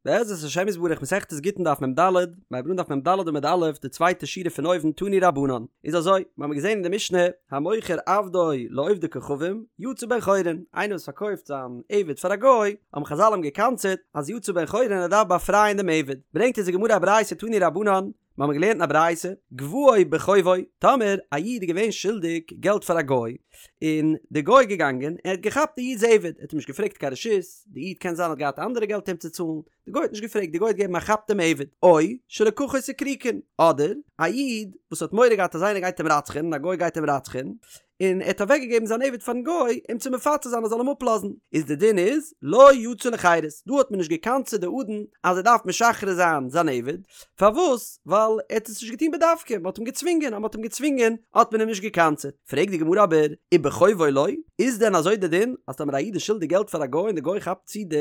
בעזרת השם יתברך מסכת גיטין דף מ"ד, מ'הייבט אן דף מ"ד עמוד א', די צווייטע שורה פון אויבן תנו רבנן, איז אזוי, מיר האבן געזען אין די משנה, המוכר עבדו לעובדי כוכבים, יצא בן חורין, איינער וואס פארקויפט זיין עבד פאר א גוי, האבן חזל אים גע'קנס'עט אז יצא בן חורין ער דארף באפרייען דעם עבד, ברענגט אונז די גמרא א ברייתא תנו רבנן, מיר האבן געלערנט אין א ברייתא, גבאו בחובו, טאמער א איד איז געווען שולדיג געלט פאר א גוי, און די גוי איז געגאנגען און ער האט געכאפט די איד'ס עבד, ער האט אים נישט געפרעגט קיין רשות, די איד קען זיין האט געהאט אנדערע געלט אים צו צאלן, די גוי האט נישט געפרעגט, די גוי האט געגעבן א כאפ דעם עבד, או שלקחו סיקריקון, אדער א איד וואס האט מורא געהאט אז איינער גייט אים רצח'ענען, א גוי גייט אים רצח'ענען, און ער האט אוועק געגעבן זיין עבד פארן גוי אים צו מפצה זיין ער זאל אים אפלאזן, איז די דין איז לא יצא לחירות, דא האט מען נישט געקנס'עט די אדון אז ער דארף משחרר זיין זיין עבד, פארוואס? ווייל ער האט עס נישט געטון בדווקא, מען האט אים געצווינגען, אז מען האט אים געצווינגען האט מען אים נישט געקנס'עט, פרעגט די גמרא אבער, ובחובו לא, איז דען אזוי די דין אז טאמער א איד איז שולדיג געלט פאר א גוי און די גוי כאפט צו די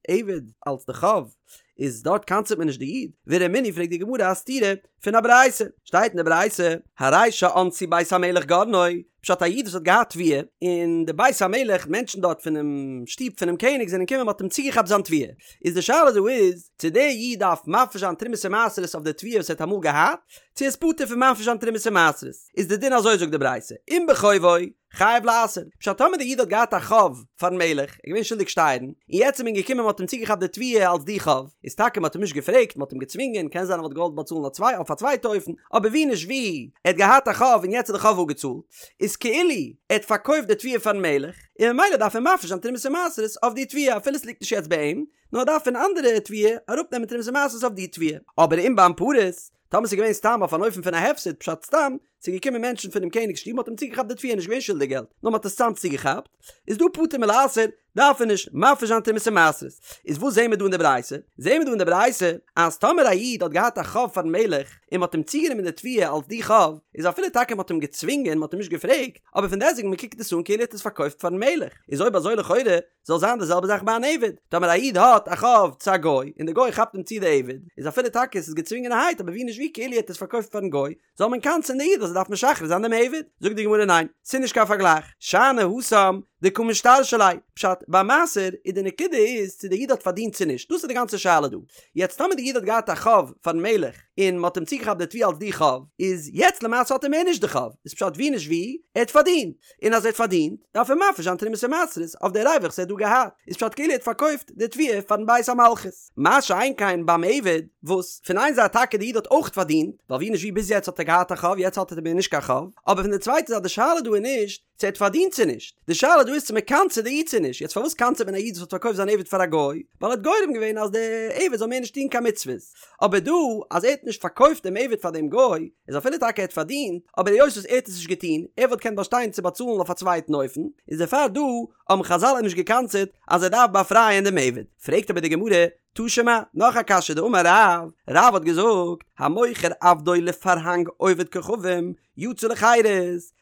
עבד אלס די חוב, איז דארט קנס'עט מען נישט די איד? ורמינהי פרעגט די גמרא א סתירה פון א ברייתא, שטייט אין די ברייתא, הרי שאנסו בית המלך גרנו, פשט א איד וואס האט געהאט תבואה, און די בית המלך מענטשן דארט פונעם שטוב פונעם קעניג זענען געקומען מ'האט אים צוגעכאפט זיין תבואה, איז די שאלה דא איז, צו דער איד דארף מפריש זיין תרומות ומעשרות אויף די תבואה וואס ער האט אמאל געהאט, צו ער איז פטור פון מפריש זיין תרומות ומעשרות, איז די דין אזוי זאגט די ברייתא, אם בחובו, חייב לעשר, פשט טאמער די איד האט געהאט א חוב פארן מלך, ער איז געווען שולדיג שטייערן, און יעצט איז מען געקומען מען האט אים צוגעכאפט די תבואה אלס די חוב, איז טאקע מען האט אים נישט געפרעגט, מען האט אים געצווינגען, קען זיין ער וואלט געוואלט באצאלן א צוויי אויף א צווייטע אופן, אבער ווי נישט ווי, ער האט געהאט א חוב און יעצט איז די חוב אפגעצאלט, איז כאילו ער האט פארקויפט די תבואה פארן מלך, און ממילא דארף ער מפריש זיין תרומות ומעשרות אויף די תבואה אפילו עס ליגט נישט יעצט ביי אים, נאר ער דארף פון אנדערע תבואה אראפנעמען תרומות ומעשרות אויף די תבואה. אבער אם באנפרות, טאמער ס'איז געווען סתם אויף אן אופן פון א הפסד, פשט סתם, ס'איז געקומען מענטשן פונעם קעניג'ס שטוב מ'האט אים צוגעכאפט די תבואה נישט געווען שולדיג געלט, נאר מ'האט עס סתם צוגעכאפט, איז דא פטור מלעשר, דארף ער נישט מפריש זיין תרומות ומעשרות. איז וואס זעהן מיר דא אין די ברייתא? זעהן מיר דא אין די ברייתא אז טאמער א איד האט געהאט א חוב פארן מלך און מ'האט אים צוגענומען די תבואה אלס די חוב, איז אפילו טאקע מ'האט אים געצווינגען, מ'האט אים נישט געפרעגט, אבער פון דעסטוועגן מ'קוקט עס אן כאילו ער האט עס פארקויפט פארן מלך, איז אויב אזוי לכאורה זאל זיין די זעלבע זאך ביי אן עבד, טאמער א איד האט א חוב צו א גוי, און די גוי כאפט אים צו די עבד, איז אפילו טאקע עס איז געצווינגענערהייט אבער ווי נישט ווי כאילו ער האט עס פארקויפט פארן גוי, זאל מען קנס'ען די איד אז ער דארף משחרר זיין דעם עבד? זאגט די גמרא ניין, ס'איז נישט קיין פארגלייך, שאני התם דקא משתרשי ליה, פשט, ביי מעשר איז די נקודה איז צו די איד האט פארדינט צו נישט, דאס איז די גאנצע שאלה דא, יעצט טאמער די איד האט געהאט א חוב פארן מלך, און מ'האט אים צוגעכאפט די תבואה אלס די חוב, איז יעצט למעשה האט ער מער נישט די חוב, איז פשט ווי נישט ווי, ער האט פארדינט, און אז ער האט פארדינט, דארף ער מפריש זיין תרומות ומעשרות אויף די רווח וואס ער האט דא געהאט, איז פשט כאילו ער האט פארקויפט די תבואה פארן בית המלכות. מה שאין כן ביים עבד, וואס פון איין זייט טאקע די איד האט אויך פארדינט, ווייל ווי נישט ווי ביז יעצט האט ער געהאט א חוב יעצט האט ער מער נישט קיין חוב, אבער פון די צווייטע זייט די שאלה דא איז נישט צו ער האט פארדינט צו נישט, די שאלה דא איז צו מען קנס'עט די איד צו נישט, יעצט פארוואס קנס'עט מען א איד וואס האט פארקויפט זיין עבד פאר א גוי, ווייל ער האט גורם געווען אז די עבד זאל מער נישט טון קיין מצוות, אבער דא אז ער האט נישט פארקויפט דעם עבד פאר דעם גוי, איז אפילו טאקע ער האט פארדינט, אבער היות וואס ער האט עס נישט געטון, ער וואלט געקענט באשטיין צו באצאלן אויף א צווייטן אופן, איז דערפאר דא האבן חזל אים נישט געקנס'עט אז ער דארף באפרייען דעם עבד. פרעגט אבער די גמרא, תא שמע, נאך א קשיא דאמר רב, רב האט געזאגט, המוכר עבדו לפרהנג עובד כוכבים, יצא לחירות,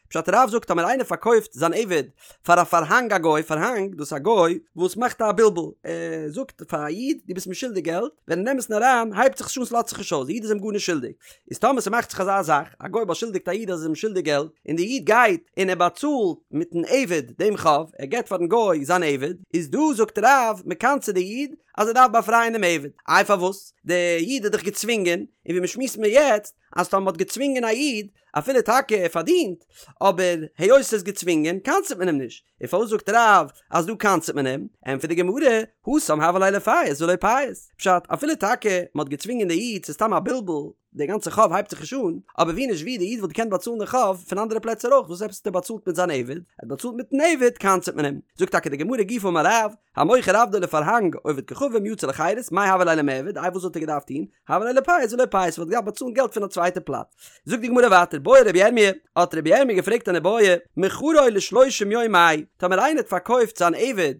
פשט רב זאגט טאמער איינער פארקויפט זיין עבד פאר א פארהאנג א גוי, פארהאנג דאס איז א גוי וואס מאכט א בלבול, ער זאגט פאר א איד דו ביסט מיר שולדיג געלט, ווען אין אמת'ן אריין הייבט זיך עס נישט אן ס'לאזט זיך נישט אויס, די איד איז אים גארנישט שולדיג, איז טאמער ס'מאכט זיך אזא זאך, א גוי באשולדיגט א איד אז ער איז אים שולדיג געלט, און די איד גייט און ער באצאלט מיטן עבד דעם חוב, ער געבט פארן גוי זיין עבד, איז דא זאגט רב מ'קנס'עט די איד אז ער דארף באפרייען דעם עבד, איי פארוואס? די איד איז דאך געצווינגען, און ווי מ'שמועסט מיר יעצט אז טאמער מ'האט געצווינגען א איד אפילו טאקע ער פארדינט, אבער היות ס'איז געצווינגען קנס'עט מען אים נישט, און פארוואס זאגט רב אז דא קנס'עט מען אים? ענטפערט די גמרא, התם הוה ליה לפייס ולא פייס, פשט, אפילו טאקע מ'האט געצווינגען די איד ס'איז סתם א בלבול, די גאנצע חוב הייבט זיך נישט אן, אבער ווי נישט ווי די איד וואלט געקענט באצאלן די חוב פון אנדערע פלעצער אויך, וואס עפעס האט ער באצאלט מיט זיין עבד? ער האט באצאלט מיטן עבד קנס'עט מען אים. זאגט טאקע די גמרא גופא אמר רב, המוכר עבדו לפרהנג עובד כוכבים יצא לחירות, מאי הוה ליה למעבד, איי וואס וואלט ער געדארפט טון? הוה ליה ליפייס ולא פייס וואלט געדארפט באצאלן געלט פון א צווייטע פלאץ. זאגט די גמרא ווייטער בעי רבי ירמי', האט רבי ירמי' געפרעגט אן איבעיא, מכרו לשלושים יום מהו, טאמער איינער האט פארקויפט זיין עבד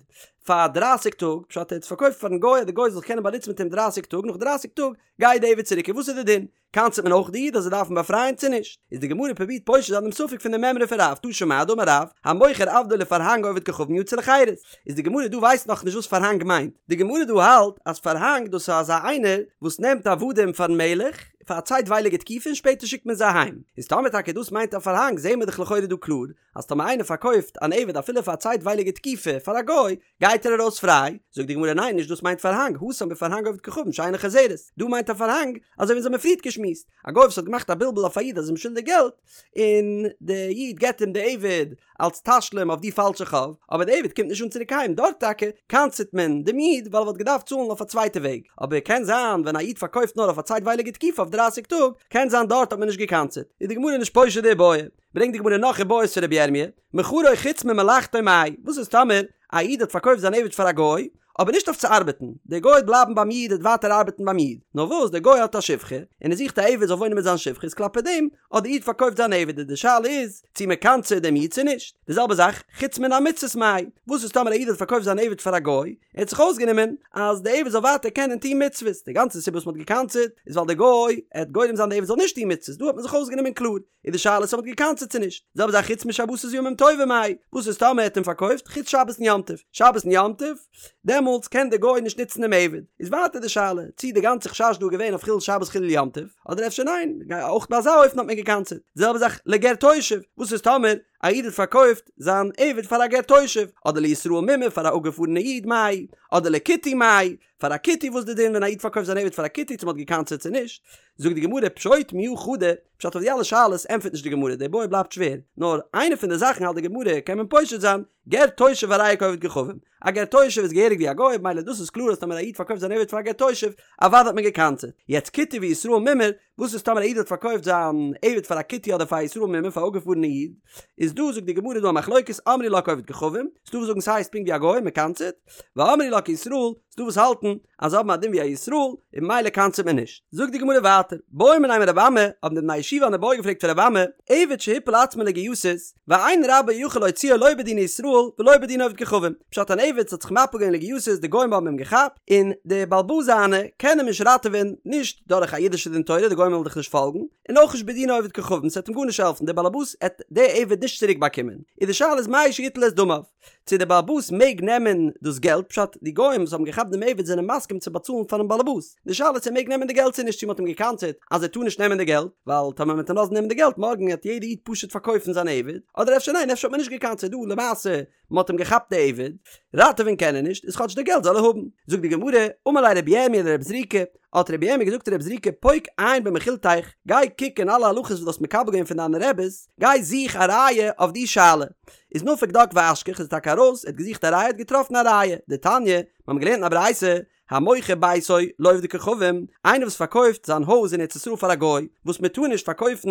פאר דרייסיג טאג, פשט ער האט עס פארקויפט פארן גוי אז די גוי זאל זיך קענען באנוצן מיט אים דרייסיג טאג, נאך דרייסיג טאג גייט די עבד צוריק, און וואס איז די דין? קנס'עט מען אויך די איד אז ער דארף אים באפרייען צו נישט? איז די גמרא פרובירט פושט זיין דעם ספק פון די מימרא פון רב, תא שמע דאמר רב, המוכר עבדו לפרהנג עובד כוכבים יצא לחירות. איז די גמרא דא ווייסט נאך נישט וואס פארהאנג מיינט. די גמרא דא האלט אז פארהאנג דאס איז אזא איינער וואס נעמט עבדים פארן מלך, פאר א צייטווייליגע תקופה און שפעטער שיקט מען זיי אהיים. איז טאמער טאקע דאס מיינט א פארהאנג זעהן מיר דאך לכאורה דא קלאר אז טאמער איינער פארקויפט אן עבד אפילו פאר א צייטווייליגע תקופה פאר א גוי גייט ער ארויס פריי, זאגט די גמרא ניין נישט דאס מיינט פארהאנג, התם בפרהנג עובד כוכבים שאינה חוזרת, דא מיינט א פארהאנג אזוי ווי אונז האמיר פריערט געשמועסט, א גוי וואס האט געמאכט א בלבול אויף א איד אז ער איז אים שולדיג געלט, און די איד געבט אים די עבד אלס תשלום אויף די פאלשע חוב, אבער די עבד קומט נישט אן צוריק אהיים, דארט טאקע קנס'עט מען דעם איד ווייל ער וואלט געדארפט צאלן אויף א צווייטע וועג, אבער קען זיין ווען א איד פארקויפט נאר אויף א צייטווייליגע תקופה אויף דרייסיג טאג, קען זיין דארט האט מען נישט געקנס'עט, איז די גמרא נישט פושט די איבעיא. ברענגט די גמרא נאך איבעיות פון רבי ירמי', מכרו חוץ ממלאכתו מאי, וואס איז טאמער א איד האט פארקויפט זיין עבד פאר א גוי, אבער נישט אויף צו ארבעטן, דער גוי וועט בלייבן ביים איד ער וועט ווייטער ארבעטן ביים איד, נאר וואס דער גוי האט א שפחה, און ער זוכט א עבד זאל וואוינען מיט זיין שפחה איז כלפי דעם האט דער איד פארקויפט זיין עבד איז די שאלה איז צו מען קנס'עט דעם איד צו נישט, די זעלבע זאך חוץ מן המצוות מאי, וואס איז טאמער א איד האט פארקויפט זיין עבד פאר א גוי, ער האט זיך אויסגענומען אז די עבד זאל ווייטער קענען טון מצוות, די גאנצע סיבה וואס מען האט געקנס'עט איז ווייל דער גוי עט גורם זיין די עבד זאל נישט טון מצוות, דא האט מען זיך אויסגענומען קלאר. איז די שאלה צו מ'האט געקנס'עט צו נישט. די זעלבע זאך חוץ משבתות וימים טובים מאי, וואס איז טאמער ער האט אים פארקויפט חוץ שבת און יום טוב, שבת און יום טוב, דעמאלטס קען דער גוי נישט נוצן דעם עבד. איז ווייטער די שאלה, צי די גאנצע חשש דא איז געווען אויף חילול שבת חילול יום טוב, אדער אפשר ניין, אויך ביי אזא אופן האט מען געקנס'עט. די זעלבע זאך לגר תושב, וואס איז טאמער א איד האט פארקויפט זיין עבד פאר א גר תושב, אדער לישראל מומר פאר א אפגעפארענע איד מאי, אדער לכותי מאי, פאר א כותי וואס די דין ווען א איד פארקויפט זיין עבד פאר א כותי צו מ'האט געקנס'עט צו נישט, זאגט די גמרא פשוט מיהא חדא, פשט אויף די אלע שאלות ענטפערט נישט די גמרא, די בעיא בלייבט שווער, נאר איינע פון די זאכן האלט די גמרא קען מען פושט זיין, גר תושב הרי הוא כעובד כוכבים, א גר תושב איז געהעריג ווי א גוי, ממילא דאס איז קלאר אז טאמער א איד פארקויפט זיין עבד פאר א גר תושב, אוודאי האט מען געקנס'עט, יעצט כותי וישראל מומר, וואס איז טאמער א איד האט פארקויפט זיין עבד פאר א כותי אדער פאר א ישראל מומר פאר א אפגעפארענע איד, איז דא זאגט די גמרא דא א מחלוקת אמרי לה כעובד כוכבים, ס'דא וואס זאגן ס'הייסט פונקט ווי א גוי מ'קנס'עט, ואמרי לה כישראל, ס'דא וואס האלטן אז זיי האבן א דין ווי א ישראל און ממילא קנס'עט מען נישט. זאגט די גמרא ווייטער, בעו מיניה מרבי אמי, האבן די בני ישיבה אן איבעיא געפרעגט פון רבי אמי, עבד שהפיל עצמו לגייסות, ואין רבו יכול להוציאו לא בדיני ישראל ולא בדיני עובד כוכבים, פשט אן עבד האט זיך מפיל געווען לגייסות די גוים האבן אים געכאפט, און די בעל הבית זיינע קען אים נישט ראטעווען נישט דורך א אידישע דין תורה די גוים וועלן דאך נישט פאלגן, און אויך נישט בדיני עובד כוכבים ס'וועט אים גארנישט העלפן די בעל הבית עט די עבד נישט צוריק באקומען, איז די שאלה איז מהו שיטול את דמיו. צו דער באלעבאס מעג נעמען דאס געלט, פשט, די גוים וואס האבן געכאפט דעם עבד זענען מסכים צו באצאלן פארן באלעבאס, די שאלה איז צו ער מעג נעמען די געלט צו נישט, צו מען האט אים געקנס'עט אז ער טאר נישט נעמען די געלט, ווייל טאמער מען וועט אים לאזן נעמען די געלט מארגן וועט יעדער איד פשוט פארקויפן זיין עבד, אדער אפשר ניין אפשר האט מען נישט געקנס'עט דא למעשה מען האט אים געכאפט די עבד, ראטעווען קען ער נישט, איז כאטש די געלט זאל ער האבן. זאגט די גמרא, אמר ליה רבי ירמי' לרב זריקא, האט רבי ירמי' געזאגט צו רב זריקא פוק עיין במכילתיך, גיי קוק אין אלע הלכות וואס דו האסט מקבל געווען פון דיינע רעבעס, גיי זוך א ראיה אויף די שאלה. איז נפק דק ואשכח איז טאקע ארויס, ער האט געזוכט א ראיה האט געטראפן א ראיה, דתניא, מיר האבן געלערנט אין א ברייתא, המוכר ביתו לעובדי כוכבים, איינער וואס פארקויפט זיין הויז אין ארץ ישראל פאר א גוי, וואס מען טאר נישט פארקויפן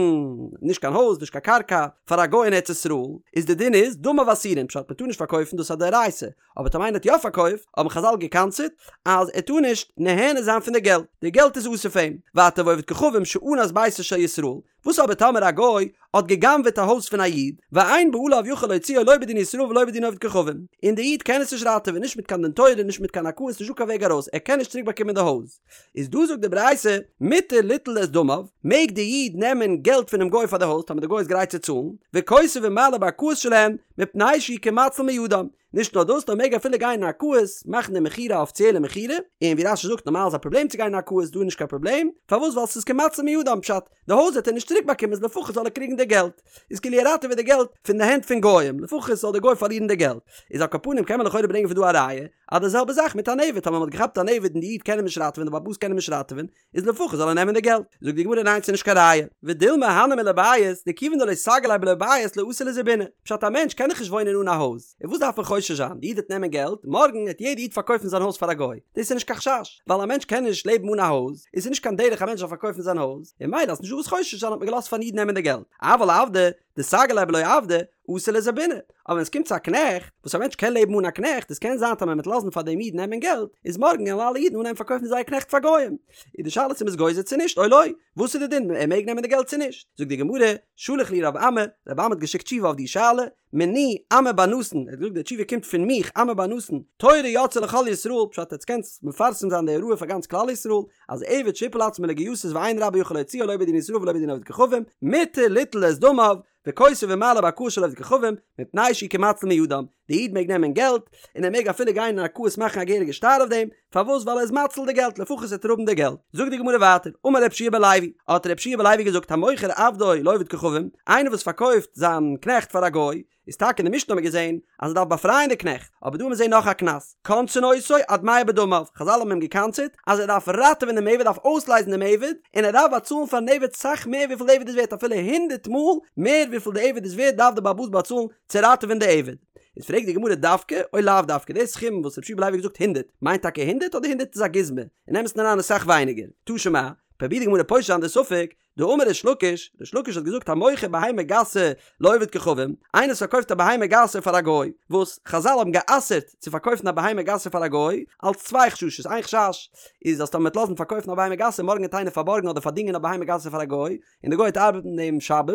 נישט קיין הויז נישט קיין קרקע פאר א גוי אין ארץ ישראל, איז די דין איז דמיו אסורין, פשט מען טאר נישט פארקויפן דאס איז א דאורייתא, אבער טאמער איינער האט יא פארקויפט, האבן חזל געקנס'עט אז ער טאר נישט נהנה זיין פון די געלט, די געלט איז אסור פאר אים, ווייטער ועובד כוכבים שאנס ביתו של ישראל, וואס אבער טאמער א גוי האט גע'גנב'עט א הויז פון א איד, ואין בעליו יכול להוציאו לא בדין ישראל ולא בדין עובד כוכבים, און די איד קען עס נישט ראטעווען נישט מיט קיין דין תורה נישט מיט קיין ערכאות נישטא קיין וועג ארויס ער קען נישט צוריק באקומען די הויז, איז דא זאגט די ברייתא מותר ליטול את דמיו, מעג די איד נעמען געלט פונעם גוי פאר די הויז טאמער די גוי איז גרייט צו צאלן, וכותב ומעלה בערכאות שלהן, מפני שהוא כמציל מידם, נישט נאר דאס נאר מעג אפילו גיין אין ערכאות מאכן די מכירה א אפיציעלע מכירה, און ווי רש"י זאגט נארמאל איז א פראבלעם צו גיין אין ערכאות דא איז נישט קיין פראבלעם, פארוואס ווייל ס'איז כמציל מידם פשט די הויז וועט ער נישט צוריק באקומען איז לפחות זאל ער קריגן די געלט, איז כאילו ער ראטעוועט די געלט פון די הענט פון גוים לפחות זאל די גוי פארלירן די געלט, איז על כל פנים קען מען לכאורה ברענגען פון דא א ראיה אז די זעלבע זאך מיט אן עבד טאמער מ'האט געכאפט אן עבד און די איד קען אים נישט ראטעווען די בעל הבית קען אים נישט ראטעווען איז לפחות זאל ער נעמען די געלט. זאגט די גמרא ניין ס'נישט קיין ראיה. ודילמא הני מילי בית, דכיון דלא סגי ליה בלא בית לא אתי לזבוני. פשט א מענטש קען דאך נישט וואוינען אן א הויז. און וואס דארף מען חושש זיין? די איד וועט נעמען געלט, מארגן וועט יעדע איד פארקויפן זיין הויז פאר א גוי. דאס איז נישט קיין חשש. ווייל א מענטש קען נישט לעבן אן א הויז, איז נישט קיין דרך א מענטש זאל פארקויפן זיין הויז. און ממילא אז נישטא וואס חושש זיין האט מען געלאזט פארן איד נעמען די געלט. אבל עבדא, דסגי ליה בלא עבדא, אתי לזבוני, אבער ווען עס קומט צו א קנעכט, וואס א מענטש קען לעבן אן א קנעכט, עס קען זיין טאמער מ'וועט לאזן פאר דעם איד נעמען געלט, איז מארגן וועלן אלע אידן אנהייבן פארקויפן זייער קנעכט פאר גוים. איז די שאלה צו מ'איז גוזר צו נישט, או לא, וואס איז די דין, ער מעג נעמען די געלט צו נישט? זאגט די גמרא, שלח להו רב אמי, רב אמי האט געשיקט תשובה אויף די שאלה, מני אמי בר נתן, ער האט געזאגט די תשובה קומט פון מיך, אמי בר נתן, תורה יצאה לכל ישראל, פשט עטס קענטס מפרסם זיין די הוראה פאר גאנץ כלל ישראל, אז עבד שהפיל עצמו לגייסות ואין רבו יכול להוציאו לא בדין ישראל ולא בדין עובד כוכבים, מותר ליטול את דמיו, וכותב ומעלה בערכאות של עובד כוכבים, מפני שהוא כמציל מידם. די איד מעג נעמען געלט, און ער מעג אפילו גיין אין ערכאות מאכן א געהעריגע שטר אויף דעם, פארוואס ווייל ער איז מציל די געלט לפחות וועט ער האבן די געלט. זאגט די גמרא ווייטער, אמר רב שיע בן לוי, האט רב שיע בן לוי געזאגט המוכר עבדו לעובד כוכבים, איינער וואס פארקויפט זיין קנעכט פאר א גוי, איז טאקע אין די משנה האט מען געזען אז ער דארף באפרייען די קנעכט, אבער דא האט מען זען נאך א קנס, קונסין אותו עד מאה בדמיו, חזל האבן אים געקנס'עט אז ער דארף ראטעווען דעם עבד, דארף אויסלייזן דעם עבד, און ער דארף באצאלן פארן עבד סאך מער וויפיל די עבד איז ווערט אפילו הונדערט מאל מער וויפיל די עבד איז ווערט דארף די בעל הבית באצאלן צו ראטעווען די עבד. איז פרעגט די גמרא דווקא או לאו דווקא די סכום וואס רב שיע בן לוי האט געזאגט הונדערט מיינט טאקע הונדערט אדער הונדערט איז א גוזמא אין אמת'ן אריין איז סאך ווייניגער תא שמע פרובירט די גמרא פושט זיין די ספק דאמר ריש לקיש, ריש לקיש האט געזאגט המוכר בהמה גסה לעובד כוכבים, איינער וואס פארקויפט א בהמה גסה פאר א גוי, וואס חזל האבן גע'אסר'ט צו פארקויפן א בהמה גסה פאר א גוי, אלס צוויי חששות, איין חשש איז אז טאמער מ'וועט לאזן פארקויפן א בהמה גסה מארגן וועט איינער פארבארגן אדער פארדינגען א בהמה גסה פאר א גוי, און די גוי וועט ארבעטן דעם שבת,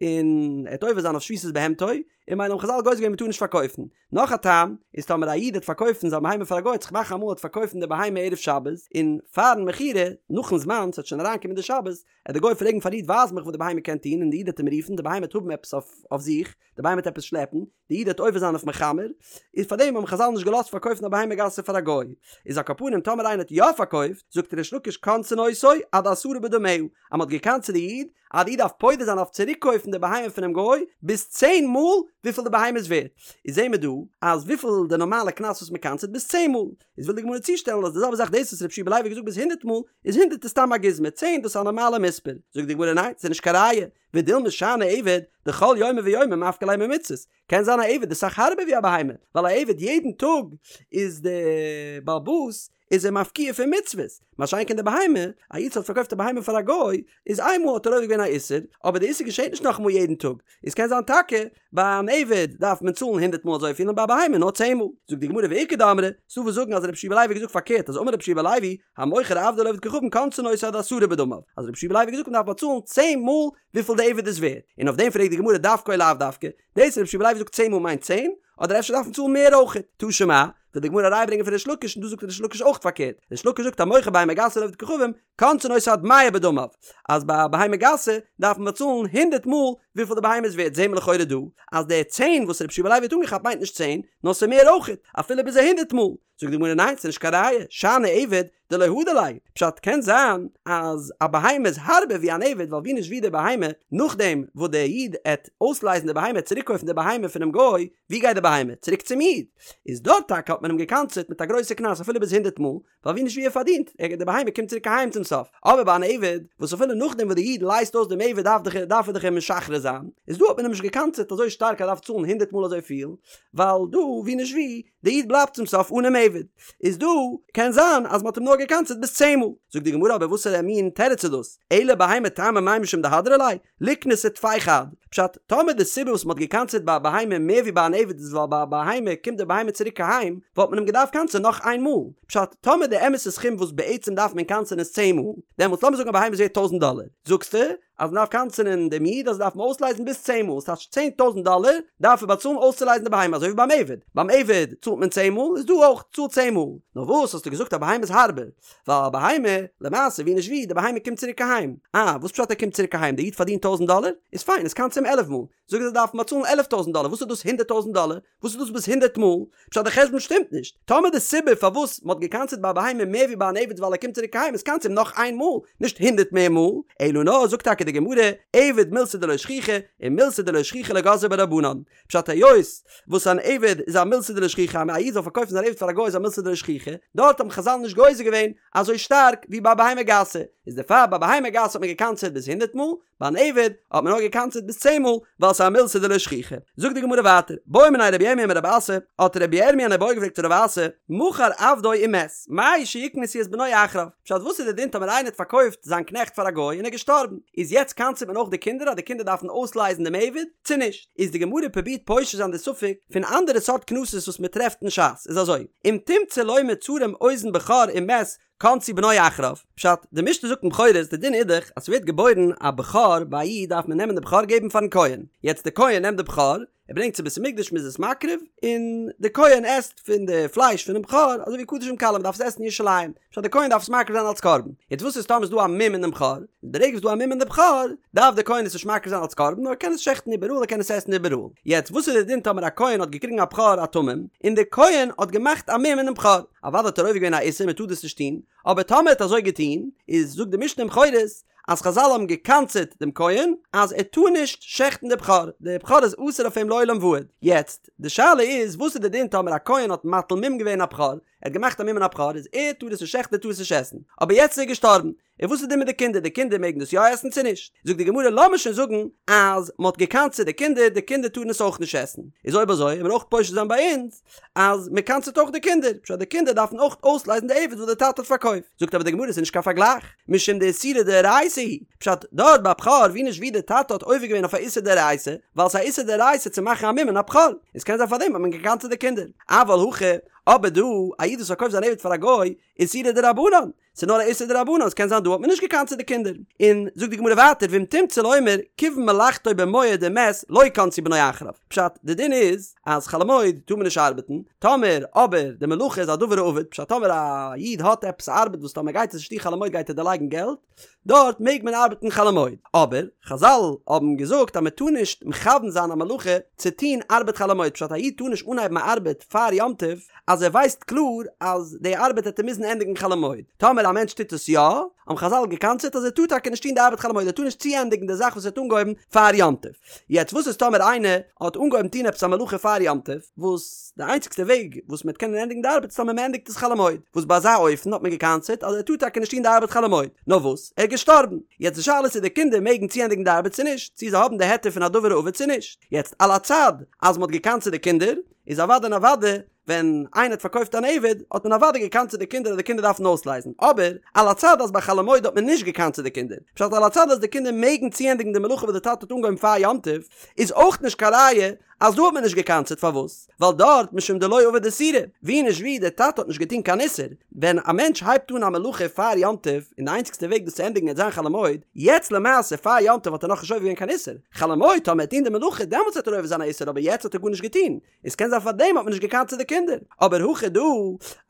און ער וועט עובר זיין אויף שביתת בהמתו, און ממילא האבן חזל גוזר געווען מ'טאר נישט פארקויפן. נאך א טעם, איז טאמער א איד וועט פארקויפן זיין בהמה פאר א גוי וועט זיך מאכן אמאל ער וועט פארקויפן די בהמה ערב שבת, און פארן מכירה, נאכן זמן, ס'וועט שוין אריינקומען די שבת, וועט די גוי פרעגן פארן איד ווייז מיך וואס די בהמה קען טון און די איד וועט אים רופן, די בהמה וועט האבן עפעס אויף זיך, די בהמה וועט עפעס שלעפן, די איד וועט עובר זיין אויף מחמר, איז פארדעם האבן חזל נישט געלאזט פארקויפן א בהמה גסה פאר א גוי. איז על כל פנים טאמער איינער האט יא פארקויפט, זאגט ריש לקיש קונסין אותו עד עשרה בדמיה, אז מ'האט געקנס'ט די איד, אז די איד דארף פודה זיין אויף צוריקקויפן די בהמה פונעם גוי ביז צען מאל וויפיל די בהמה איז ווערט, איז זעהן מיר דא אז וויפיל די נארמאלע קנס וואס מ'קנס'ט ביז צען מאל, איז וויל די גמרא צושטעלן אז די זעלבע זאך דאס וואס רב שיע בן לוי האט געזאגט ביז הונדערט מאל, איז הונדערט איז סתם א גוזמא, צען דאס איז א נארמאלע מספר, זאגט די גמרא ניין ס'איז נישט קיין ראיה, ודילמא שאני עבד דכל יומא ויומא מפקע ליה ממצוות, קען זיין א עבד איז סאך הארבער ווי א בהמה, ווייל א עבד יעדן טאג איז די בעל הבית איז ער מפקיע פון מצוות, מה שאין כן די בהמה, א איד וואס האט פארקויפט א בהמה פאר א גוי, איז איינמאל האט ער עובר געווען א איסור, אבער די איסור געשעט נישט נאכאמאל יעדן טאג, איז קען זיין טאקע ביי אן עבד דארף מען צאלן הונדערט מאל אזויפיל און ביי א בהמה נאר צען מאל. זאגט די גמרא ואיכא דאמרי, ס'דא וואס זאגן אז רבי יהושע בן לוי האט געזאגט פארקערט אז אמר רבי יהושע בן לוי, המוכר עבדו לעובד כוכבים קונסין אותו עד עשרה בדמיו, אז רבי יהושע בן לוי האט געזאגט מען דארף באצאלן צען מאל וויפיל די עבד איז ווערט, און אויף דעם פרעגט די גמרא דווקא או לאו דווקא, דאס רבי יהושע בן לוי זאגט צען מאל מיינט צען, אדער אפשר דארף מען צאלן מער אויכעט? תא שמע, וויל די גמרא אריינברענגען פון ריש לקיש און דא זאגט ריש לקיש אויך פארקערט, ריש לקיש זאגט המוכר בהמה גסה לעובד כוכבים, קונסין אותו עד מאה בדמיו, אז ביי א בהמה גסה דארף מען באצאלן הונדערט מאל וויפיל די בהמה איז ווערט, זעהן מיר לכאורה דא אז די צען וואס רבי יהושע בן לוי האט אנגעכאפט מיינט נישט צען, נאר ס'איז מער אויכעט, אפילו ביז א הונדערט מאל. זאגט די גמרא ניין ס'איז נישט קיין ראיה, שאני עבד דלא הדר ליה, פשט קען זיין אז א בהמה איז הארבער ווי אן עבד ווייל ווי נישט ווי די בהמה, נאכדעם וואס דער איד עט אויסלייזן די בהמה צוריקקויפן די בהמה פונעם גוי, ווי גייט די בהמה? צוריק צום איד! איז דארט טאקע האט מען אים געקנס'עט מיט א גרויסע קנס אפילו ביז הונדערט מאל, ווייל ווי נישט ווי ער פארדינט, ער די בהמה קומט צוריק אהיים צום סוף, אבער ביי אן עבד, וואס אפילו נאכדעם וואס די איד לייזט אויס דעם עבד דארף דאך דארף ער דאך אים משחרר זיין, איז דא האט מען אים נישט געקנס'עט אזוי שטארק אז ער דארף צאלן הונדערט מאל אזויפיל, ווייל דא ווי נישט ווי, די איד בלייבט צום סוף אנעם עבד, איז דא קען זיין אז מ'האט אים נאר געקנס'עט ביז צען מאל. זאגט די גמרא אבער וואסערע מין תירוץ איז דאס? אלא בהמה טעמא מאי משום דהדרא ליה, ליקנסיה טפי חד. פשט, טאמער די סיבה וואס מ'האט געקנס'עט ביי א בהמה מער ווי ביי אן עבד איז ווייל ביי א בהמה קומט די בהמה צוריק אהיים, וואלט מען אים געדארפט קנס'ען נאך איין מאל. פשט, טאמער די אמת'ע סכום וואס בעצם דארף מען קנס'ען איז צען מאל, דעמאלטס לאמיר זאגן א בהמה איז ווערט טויזנט דאלער, זאגסטו אז מ'דארף קנס'ענען דעם איד אז ער דארף אים אויסלייזן ביז צען מאל, ס'טייטש צען טויזנט דאלער דארף ער באצאלן אויסצולייזן די בהמה, אזוי ווי ביים עבד, ביים עבד צאלט מען צען מאל, איז דא אויך, צאל צען מאל. נאר וואס האסטו געזאגט א בהמה איז הארבער? ווייל א בהמה, למעשה ווי נישט ווי, די בהמה קומט צוריק אהיים. אה, וואס פשט ער קומט צוריק אהיים? די איד פארדינט טויזנט דאלער? איז פיין, איז קנס אים עלף מאל. זאג אז ער דארף באצאלן עלף טויזנט דאלער, וואס איז דאס הונדערט טויזנט דאלער? וואס איז דאס ביז הונדערט מאל? פשט די חשבון שטימט נישט. טאמער די סיבה פארוואס מ'האט געקנס'עט ביי א בהמה מער ווי ביי אן עבד ווייל ער קומט צוריק אהיים איז קנס אים נאך איין מאל, נישט הונדערט מער מאל. אלא נאר זאגט טאקע די גמרא, עבד מילתא דלא שכיחא, און מילתא דלא שכיחא לא גזרו בה רבנן. פשט היות וואס אן עבד איז א מילתא דלא שכיחא אז א איד זאל פארקויפן זיין עבד פאר א גוי איז א מילתא דלא שכיחא, דארט האבן חזל נישט גוזר געווען אזוי שטארק ווי ביי בהמה גסה, איז דערפאר ביי בהמה גסה האט מען געקנס'עט ביז הונדערט מאל, ביי אן עבד האט מען נאר געקנס'עט ביז צען מאל ווייל ס'איז א מילתא דלא שכיחא. זאגט די גמרא ווייטער, בעא מיניה רבי ירמיה מרב אסי, האט רבי ירמיה אן איבעיא געפרעגט צו רב אסי, מכר עבדו ומת, מהו שיקנסו את בנו אחריו? פשט וואס איז די דין טאמער איינער האט פארקויפט זיין קנעכט פאר א גוי און ער איז געשטארבן, איז יעצט קנס'עט מען אויך די קינדער אז די קינדער דארפן אויסלייזן דעם עבד, צו נישט? איז די גמרא פרובירט פושט זיין די ספק פון אנדערע סארט קנסות וואס מען טרעפט אין ש"ס, איז אזוי, אם תמצא לומר צרם אוזן בכור ומת. קנסו בנו אחריו, פשט, די משנה זאגט אין בכורות, די דין איז דאך אז ס'ווערט געבוירן א בכור ביי א איד דארף מען נעמען די בכור געבן פארן כהן, יעצט די כהן נעמט די בכור, ער ברענגט צו בית המקדש מ'איז עס מקריב, און די כהן עסט פון די פלייש פונעם בכור, אזוי ווי קדשים קלים מ'דארף עס עסן אין ירושלים, פשט די כהן דארף עס מקריב זיין אלס קרבן, יעצט וואס איז טאמער איז דא א מום אין דעם בכור, די רגע וואס דא א מום אין די בכור, דארף די כהן עס נישט מקריב זיין אלס קרבן נאר ער קען עס שעכטן איבעראל ער קען עס עסן איבעראל, יעצט וואס איז די דין טאמער א כהן האט געקריגן א בכור א תמים, און די כהן האט געמאכט א מום אינעם בכור, אוודאי האט ער עובר געווען א איסור מען טאר דאס נישט טון, אבער טאמער ער האט אזוי געטון, איז זאגט די משנה אין בכורות, אז חזל האבן גע'קנס'עט דעם כהן אז ער טאר נישט שעכטן די בכור, די בכור איז אסור אויף אים לעולם ועד. יעצט, די שאלה איז, וואס איז די דין טאמער א כהן האט מטיל מום געווען א בכור, ער האט געמאכט א מום אין א בכור, איז ער טאר עס נישט שעכטן ער טאר עס נישט עסן, אבער יעצט איז ער געשטארבן, און וואס איז די דין מיט די קינדער, די קינדער מעגן דאס יא עסן צו נישט? זאגט די גמרא לאמיר שוין זאגן אז מען האט גע'קנס'עט די קינדער, די קינדער טארן עס אויך נישט עסן, איז אויב אזוי וועט מען אויך פושט זיין ביי אונז, אז מען קנס'עט אויך די קינדער, פשט די קינדער דארפן אויך אויסלייזן די עבד וואס די טאטע האט פארקויפט, זאגט אבער די גמרא ס'איז נישט קיין פארגלייך, משום דאיסורא דאורייתא הוא, פשט דארט ביי בכור ווי נישט ווי די טאטע האט עובר געווען אויף א איסור דאורייתא, ווייל ס'איז א איסור דאורייתא צו מאכן א מום אין א בכור, און ס'קען זיין פארדעם האט מען געקנס'עט די קינדער, אבל הכא, אבער דא, א איד וואס פארקויפט זיין עבד פאר א גוי, איסורא דרבנן, ס'איז נאר א איסור דרבנן, ס'קען זיין דא האט מען נישט געקנס'עט די קינדער. און זאגט די גמרא ווייטער ואם תמצא לומר כיוון מלאכתו במועד ומת לא קנסו בנו אחריו. פשט, די דין איז אז חול המועד טאר מען נישט ארבעטן, טאמער אבער די מלאכה איז א דבר האבד, פשט טאמער א איד האט עפעס א ארבעט וואס טאמער גייט עס נישט טון חול המועד גייט ער דערלייגן געלט, דארט מעג מען ארבעטן חול המועד. אבער חזל האבן געזאגט אז מען טאר נישט מכוון זיין א מלאכה צו טון ארבעט חול המועד, פשט א איד טאר נישט אנהייבן א ארבעט פאר יום טוב, אז ער ווייסט קלאר אז די ארבעט העט ער מוזן ענדיגן חול המועד. טאמער א מענטש טוט עס יא, האבן חזל געקנס'עט אז ער טאר טאקע נישט טון די ארבעט חול המועד, ער טאר נישט צוענדיגן די זאך וואס ער האט אנגעהויבן פאר יום טוב. יעצט וואס איז טאמער איינער האט אנגעהויבן טון עפעס א מלאכה פאר יום טוב, וואס די איינציגסטע וועג וואס מען וועט קענען ענדיגן די ארבעט איז טאמער מען ענדיגט עס חול המועד, וואס ביי אזא אופן האט מען געקנס'עט אז ער טאר טאקע נישט טון די ארבעט חול המועד, נאר וואס, ער איז געשטארבן. יעצט די שאלה איז צו די קינדער מעגן צוענדיגן די ארבעט צו נישט, צו זיי האבן די היתר פון א דבר האבד צו נישט. יעצט על הצד אז מען האט געקנס'עט די קינדער, איז אוודאי און אוודאי ווען איינער האט פארקויפט אן עבד האט מען אוודאי געקנס'עט די קינדער אז די קינדער דארפן אויסלייזן, אבער על הצד אז ביי חול המועד האט מען נישט געקנס'עט די קינדער, פשט על הצד אז די קינדער מעגן צוענדיגן די מלאכה וואס די טאטע האט אנגעהויבן פאר יום טוב, איז אויך נישט קיין ראיה אז דא האט מען נישט געקנס'עט, פארוואס? ווייל דארט משום דלא עבד איסורא, ווי נישט ווי די טאטע האט נישט געטון קיין איסור, ווען א מענטש הייבט אן א מלאכה פאר יום טוב און די איינציגסטע וועג דאס צו ענדיגן וועט זיין חול המועד, יעצט למעשה פאר יום טוב האט ער נאכנישט עובר געווען קיין איסור, חול המועד טאמער ער וועט טון די מלאכה דעמאלטס וועט ער עובר זיין א איסור אבער יעצט האט ער גארנישט געטון, עס קען זיין פארדעם האט מען נישט געקנס'עט די קינדער, אבער הכא דא,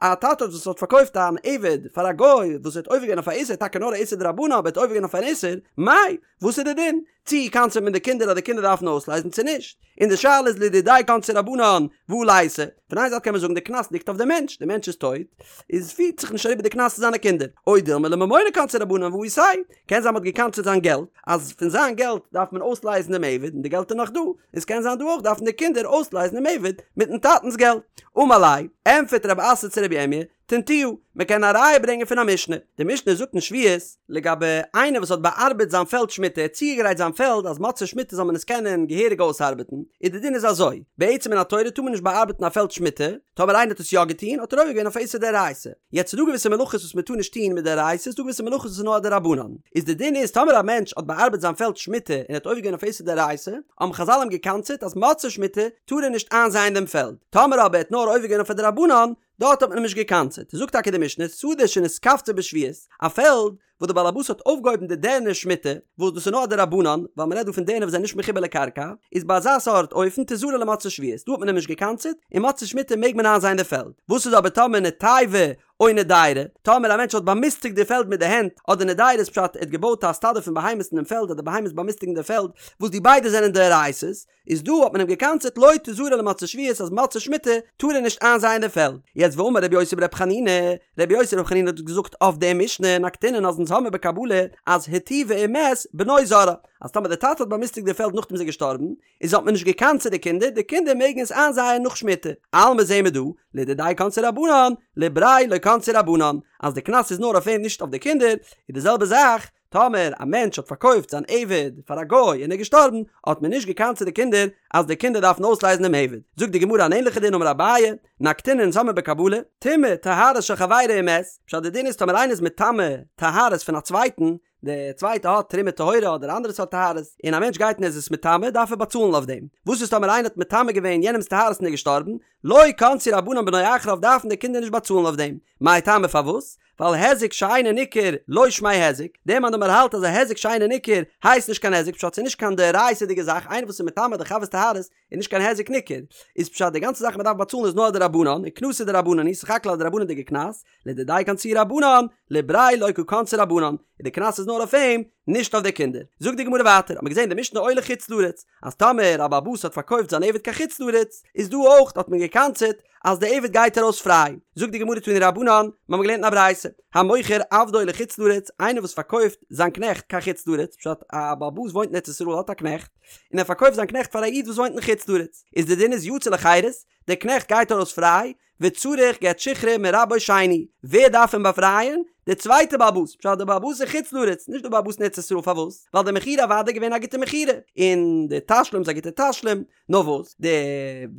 א טאטע וואס האט פארקויפט אן עבד פאר א גוי וואס האט עובר געווען אויף א איסור טאקע נאר א איסור דרבנן אבער האט עובר געווען אויף אן איסור, מאי, וואס איז די דין? צי קנס'עט מען די קינדער אז די קינדער דארפן אויסלייזן צו נישט? און די שאלה איז לדידיה קנסו רבנן והא ליתיה, פון איין זייט קען מען זאגן די קנס ליגט אויף די מענטש, די מענטש איז טויט, איז פירט זיך נישט אריבער די קנס צו זיינע קינדער, או דילמא לממוניה קנסו רבנן והא איתיה, קען זיין מ'האט געקנס'עט זיין געלט, אז פון זיין געלט דארף מען אויסלייזן דעם עבד און די געלט איז נאך דא, איז קען זיין דא אויך דארפן די קינדער אויסלייזן דעם עבד מיטן טאטנ'ס געלט. אמר ליה, ענטפערט רב אסי צו רבי ירמיה, תניתוה, מען קען א ראיה ברענגען פון א משנה, די משנה זאגט אין שביעית, לגבי איינער וואס האט באארבעט זיין פעלד שמיטה, ער האט צוגעגרייט זיין פעלד אז מוצאי שמיטה זאל מען עס קענען געהעריג אויסארבעטן, איז די דין איז אזוי, בעצם מן התורה טאר מען נישט באארבעטן א פעלד שמיטה, טאמער איינער האט עס יא געטון האט ער עובר געווען אויף א איסור דאורייתא. יעצט ס'איז דא געוויסע מלאכות וואס מען טאר נישט טון מדאורייתא, ס'איז דא געוויסע מלאכות וואס איז נאר א דרבנן, איז די דין איז טאמער א מענטש האט באארבעט זיין פעלד שמיטה און האט עובר געווען אויף איסור דאורייתא, האבן חזל אים געקנס'עט אז מוצאי שמיטה טאר ער נישט איינזייען דעם פעלד, טאמער אבער ער האט נאר עובר געווען אויף א דרבנן, דארט האט מען אים נישט געקנס'עט, זאגט טאקע די משנה, שדה שנתקפצה בשביעית, א פעלד וואס די בעל הבית האט אויפגעהויבן די דערנער שמיטה, וואס דאס איז נאר א דרבנן, ווייל מען רעדט דא פון דערנער וואס זענען נישט מחובר לקרקע, איז ביי אזא סארט אופן תזרע למוצאי שביעית, דא האט מען אים נישט געקנס'עט, און מוצאי שמיטה מעג מען איינזייען די פעלד. וואס איז אבער טאמער נטייבה או נדיירא, טאמער א מענטש האט באמיסטיגט די פעלד מיט די הענט, אדער נדיירא איז פשט ער האט געבויט א סטאדע פון בהמות אין דעם פעלד אז די בהמות באמיסטיגן די פעלד, וואס די ביידע זענען דאורייתא'ס, איז דא האט מען אים געקנס'עט לא תזרע למוצאי שביעית אז מוצאי שמיטה טאר ער נישט איינזייען די פעלד. יעצט ואמר רבי יוסי ברבי חנינא, רבי יוסי ברבי חנינא האט געזאגט אויף די משנה נקטינן אז אונז האמיר בקבלה אז היטיבה ומת בנו זורעה אז טאמער די טאטע האט באמיסטיגט די פעלד נאכדעם איז ער געשטארבן איז האט מען נישט געקנס'עט די קינדער די קינדער מעגן עס איינזייען נאך שמיטה. אלמא זעהן מיר דא לדידיה קנסו רבנן לבריה לא קנסו רבנן אז די קנס איז נאר אויף אים נישט אויף די קינדער איז די זעלבע זאך טאמער א מענטש האט פארקויפט זיין עבד פאר א גוי און ער איז געשטארבן, האט מען נישט געקנס'עט די קינדער אז די קינדער דארפן אויסלייזן דעם עבד. זאגט די גמרא אן ענליכע דין אמר אביי, נקטינן אונז האמיר בקבלה, טמא טהרות של חברו ומת, פשט די דין איז טאמער איינער איז מטמא טהרות פון א צווייטן, די צווייטע האט תרומה טהורה אדער אנדערע סארט טהרות, און א מענטש גייט און ער איז עס מטמא דארף ער באצאלן אויף דעם. וואס איז טאמער איינער האט מטמא געווען יענעמ'ס טהרות און ער איז געשטארבן, לא קנסו רבנן בנו אחריו דארפן די קינדער נישט באצאלן אויף דעם. מאי טעמא פארוואס? ווייל היזק שאינו ניכר לא שמיה היזק, דער מאן דאמר האלט אז א היזק שאינו ניכר הייסט נישט קיין היזק פשט ס'איז נישט קיין דאורייתא'דיגע זאך, איינער וואס איז מטמא די חבר'ס טהרות איז נישט קיין היזק ניכר, איז פשט די גאנצע זאך מ'דארף באצאלן איז נאר א דרבנן, און קנסא דרבנן היא, סך הכל א דרבנן'דיגע קנס, לדידיה קנסוהו רבנן, לבריה לא קא קנסי רבנן, און די קנס איז נאר אויף אים, נישט אויף די קינדער. זאגט די גמרא ווייטער, האט מען געזען די משנה או לחוץ לארץ, אז טאמער א בעל הבית האט פארקויפט זיין עבד קיין חוץ לארץ, איז דא אויך האט מען געקנס'עט אז די עבד גייט ארויס פריי. זאגט די גמרא תנו רבנן, מיר האבן געלערנט אין א ברייתא, המוכר עבדו לחוץ לארץ, איינער וואס פארקויפט זיין קנעכט קיין חוץ לארץ, פשט א בעל הבית וואוינט אין ארץ ישראל האט א קנעכט, און ער פארקויפט זיין קנעכט פאר א איד וואס וואוינט אין חוץ לארץ, איז די דין איז יצא לחירות, דער קנעכט גייט ארויס פריי, וצריך גט שחרור מרבו שני, ווער דארף אים באפרייען? דער צווייטער בעל הבית, פשט דער בעל הבית אין חוץ לארץ, נישט דער בעל הבית אין ארץ ישראל, פארוואס? ווייל די מכירה אוודאי געווען א גוטע מכירה, און די תשלום איז א גוטע תשלום, נאר וואס, דער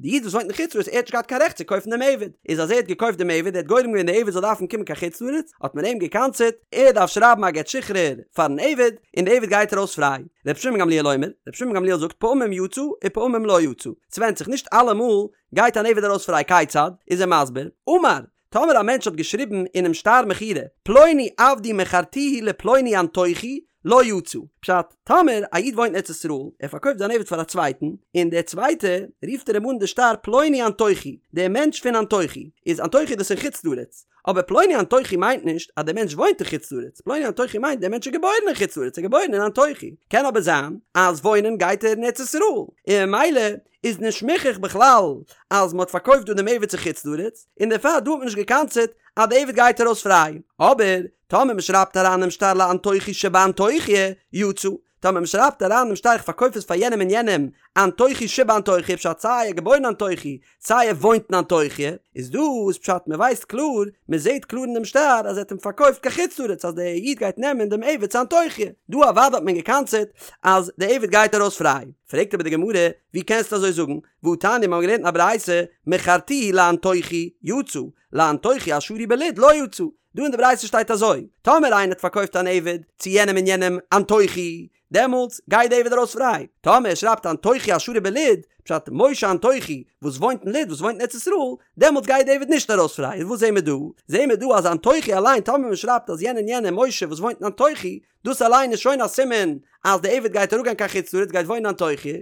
איד וואס וואוינט אין חוץ לארץ ער האט נישט געהאט קיין רעכט צו קויפן דעם עבד, איז אז ער האט געקויפט דעם עבד, ער האט גורם געווען דער עבד זאל דארפן קומען קיין חוץ לארץ, האט מען אים געקנס'עט, ער דארף שרייבן א גט שחרור פארן עבד, און דער עבד גייט ארויס פריי. רבי שמעון גמליאל אומר, רבי שמעון גמליאל זאגט פעמים יצא ופעמים לא יצא, ס'ווענדט זיך, נישט אלעמאל גייט אן עבד ארויס פריי כיצד? איז ער מסביר, אמר, טאמער א מענטש האט געשריבן אינעם שטר מכירה, פלוני עבדי מכרתיהו לפלוני אנטוכי, לא יצא. פשט, טאמער א איד וואוינט אין ארץ ישראל, ער פארקויפט זיין עבד פאר א צווייטן, און דער צווייטער רופט ער אים אן די שטר פלוני אנטוכי, דער מענטש פון אנטוכי, איז אנטוכי דאס אין חוץ לארץ, אבער פלוני אנטוכי מיינט נישט אז דער מענטש וואוינט אין חוץ לארץ, פלוני אנטוכי מיינט דער מענטש איז געבוירן אין חוץ לארץ, ער איז געבוירן אין אנטוכי, קען אבער זיין אז וואוינען גייט ער אין ארץ ישראל, און ממילא איז נישט מוכח בכלל אז מען האט פארקויפט דא דעם עבד צו חוץ לארץ, און דערפאר דא האט מען נישט געקנס'עט אז די עבד גייט ארויס פריי. אבער טאמער מען שרייבט אריין דעם שטר לאנטוכי שבאנטוכיא יצא, טאמער מען שרייבט אריין דעם שטר איך פארקויף עס פאר יענעם און יענעם אנטוכי שבאנטוכיא פשט סיי ער געבוירן אנטוכי סיי ער וואוינט אין אנטוכיא, איז דא איז פשט מען ווייסט קלאר, מען זעט קלאר אין דעם שטר אז ער האט אים פארקויפט קיין חוץ לארץ אז דער איד גייט נעמען דעם עבד צו אנטוכיא, דא אוודאי האט מען געקנס'עט אז דער עבד גייט ארויס פריי. פרעגט אבער די גמרא, ווי קענסטו אזוי זאגן, והתניא מיר האבן געלערנט אין א ברייתא, מכרתיהו לאנטוכי, יצא, לאנטוכי השרוי בלוד לא יצא, דא אין די ברייתא שטייט אזוי, טאמער איינער האט פארקויפט אן עבד צו יענעם און יענעם אנטוכי, דעמאלטס גייט די עבד ארויס פריי, טאמער ער שרייבט אנטוכי השרוי בלוד, פשט משה אנטוכי וואס וואוינט אין לוד וואס וואוינט אין ארץ ישראל, דעמאלטס גייט די עבד נישט ארויס פריי, און וואס זעהן מיר דא? זעהן מיר דא אז אנטוכי אליין טאמער מען שרייבט אז יענער און יענער משה וואס וואוינט אין אנטוכי, דאס אליין איז שוין א סימן אז די עבד גייט אראפגיין קיין חוץ לארץ גייט וואוינען אנטוכי,